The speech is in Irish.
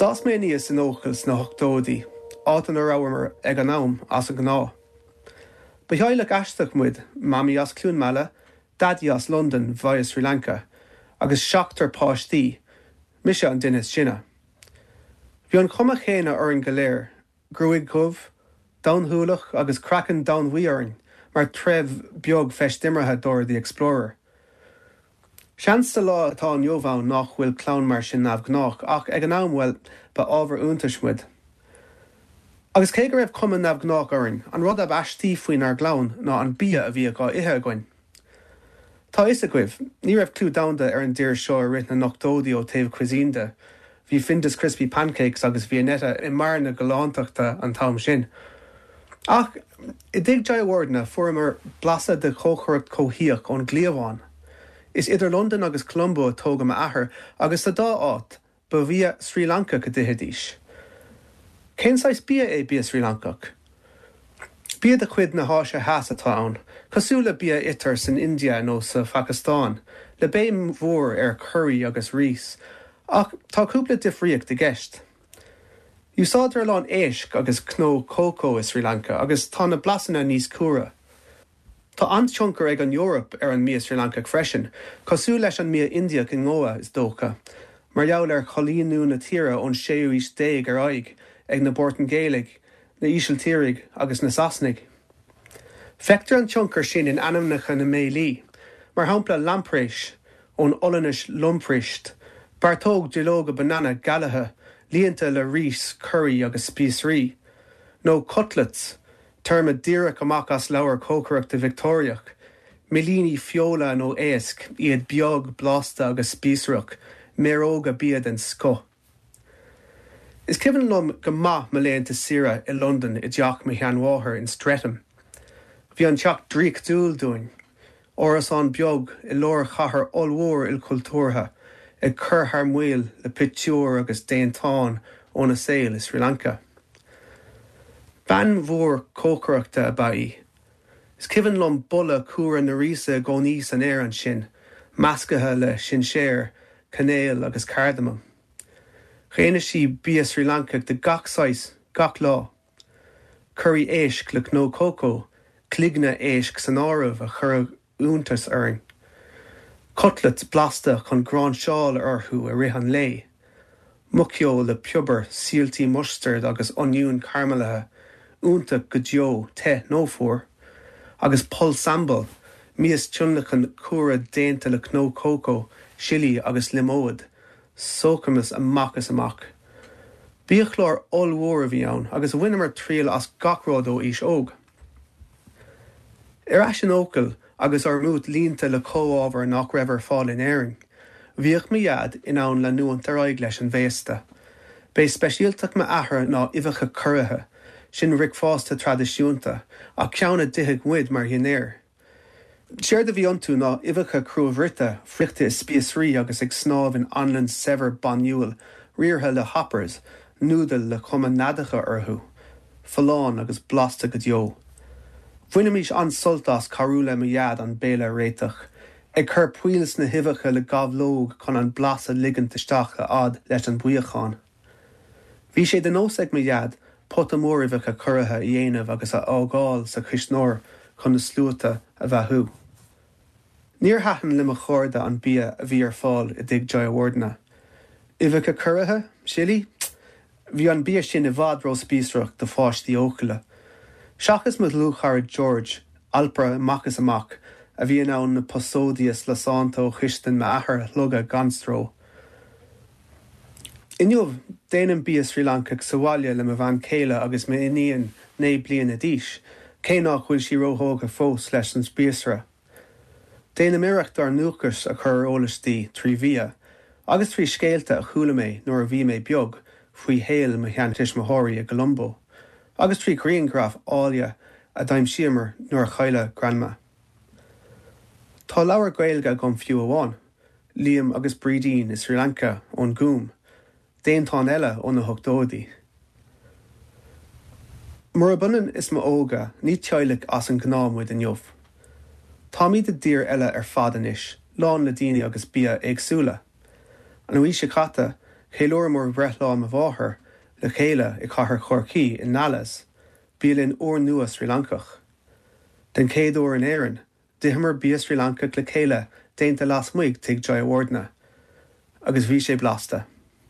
D'fhás mé aníos in Eochaill sna hochtóidí, áit ina rabhamar ag an am as an ngnáth. Ba theaghlach aisteach muid, Mamaí as Cluain Meala, Daidí as Londain via Sri Lanka, agus seachtar páistí, mise an duine is sine. Bhí an chuma chéanna orainn go léir, gruaig dhubh, donn-shúileach agus craiceann domhainbhuí orainn mar threibh beag feistimeartha Dora the Explorer. Seans sa lá atá inniu ann nach bhfuil clann mar sin neamhghnách, ach ag an am, bhuel, ba ábhar iontais muid. Agus cé go raibh cuma neamhghnách orainn, an rud ab aistí faoinár gclann ná an bia a bhíodh á ithe againn. Tá a fhios agaibh, ní raibh clú domhanda ar an dtír seo i rith na n-ochtóidí ó taobh cuisine de, bhí Findus Crispy Pancakes agus Viennetta i mbarr na galántachta an t-am sin. Ach i dtigh Jayawardene fuaireamar blaiseadh de chócaireacht chomhthíoch ón gcliabhán. Is idir Londain agus Colombo a tógadh m'athair agus sa dá áit, Ba bhia Srí Lancach a d'ithidís. Cén saghas bia é bia Srí Lancach? Bia de chuid na hÁise Theas atá ann, cosúil le bia a itear san India nó sa Phacastáin, le béim mhór ar churraí agus rís, ach tá cúpla difríocht i gceist. Úsáidtear a lán éisc agus cnó cócó i Srí Lanca agus tá na blasanna níos cumhra. Tá an-tionchar ag an Eoraip ar an mbia Srí Lancach freisin, cosúil leis an mbia Indiach i nGoa, is dócha, mar gheall ar choilíniú na tíre ón séú aois déag ar aghaidh ag na Portaingéalaigh, na hÍsiltírigh agus na Sasanaigh. Feictear an tionchar sin in ainmneacha na mbéilí, mar shampla lamprais, ón Ollainnis lamprijst, beartóg duilleoga banana galaithe líonta le rís, curaí agus spíosraí, nó cutlets, Téarma díreach amach as leabhar cócaireachta Victeoiriach, millíní feola nó éisc, iad beag, blasta agus spíosrach, méaróga bia den scoth. Is cuimhin liom go maith mo laethanta saoire i Londain i dteach mo sheanmháthar in Streatham. Bhí an teach draíochtúil dúinn. Árasán beag i lár chathair ollmhór ilchultúrtha, ag cur thar maoil le pictiúir agus déantáin óna saol i Sri Lanka. Bean mhór cócaireachta ab ea í. Is cuimhin liom boladh cumhra na ríse i gcónaí san aer ansin, measctha le sinséar, cainéal agus cardamam. Dhéanadh sí bia Srí Lancach de gach saghas, gach lá. Curaí éisc le cnó cócó, cloigne éisc san áireamh a chuireadh iontas orainn. Cutlets blasta chun gráinseáil orthu i rith an lae. Muiceoil le piobar, síoltaí mustaird agus oinniún caraimilithe, iontach go deo, te nó fuar. Agus pol sambal, mias tionlacain cumhra déanta le cnó cócó, sillí agus liomóid, Sócamas amach is amach. Biachlár ollmhór a bhí ann agus bhaineamar triail as gach rud ó aois óg. Ar ais in Eochaill agus ár mbúit líonta le comhábhair nach raibh ar fáil in Éirinn, bhíodh mo Dhaid in ann leanúint ar aghaidh leis an bhféasta. B'é speisialtacht m'athar ná uibheacha curaithe, sin bricfeasta traidisiúnta, ach ceann a d'itheadh muid mar dhinnéar. Séard a bhí iontu ná uibheacha cruabhruite, friochta i spíosraí agus ag snámh in anlann saibhir bainniúil, riartha le hoppers, núdail le cuma neadacha orthu. Folláin agus blasta go deo. Bhainimis an-sult as cabhrú le mo Dhaid an béile a réiteach, ag cur poill sna huibheacha le gabhlóg chun an blas a ligint isteach a fhad leis an buíochán. Bhí sé de nós ag mo Dhaid pota mór uibheacha curaithe a dhéanamh agus a fhágáil sa chuisneoir chun na sluaite a bheathú. Níor thaitin le mo chairde an bia a bhí ar fáil i dtigh Jayawardene. Uibheacha curaithe? Sillí? Bhí an bia sin i bhfad róspíosrach do pháistí Eochaille. Seachas mo dhlúthchara George, alpaire amach is amach, a bhí in ann na posóidí lasánta ó chistin m'athar a shlogadh gan stró. Inniu, déanaim bia Srí Lancach sa bhaile le mo bhean chéile agus m'iníon 9 bliana d'aois, cé nach bhfuil sí róthógtha fós leis an spíosra. Déanaim iarracht ár ndúchas a chur ar eolas di trí bhia, agus trí scéalta a chuala mé nuair a bhí mé beag faoi shaol mo sheantuismitheoirí i gColombo, agus trí ghrianghraif áille a d'aimsíomar nuair a cailleadh Grandma. Tá leabhar Gaeilge agam fiú amháin. Liam agus Brídín i Sri Lanka ón Gúm, déantán eile ó na hochtóidí. Murab ionann is m'óige, ní teaghlach as an ngnáth muid inniu. Táimid i dtír eile ar fad anois, lán le daoine agus bia éagsúla. An mhí seo caite, Cheiliúramar breithlá mo mháthar le chéile i cathair Chorcaí i Nala's, bialann úrnua Srí Lancach. Den chéad uair in Éirinn, d'itheamar bia Srí Lancach le chéile déanta lasmuigh tigh Jayawardena. Agus bhí sé blasta.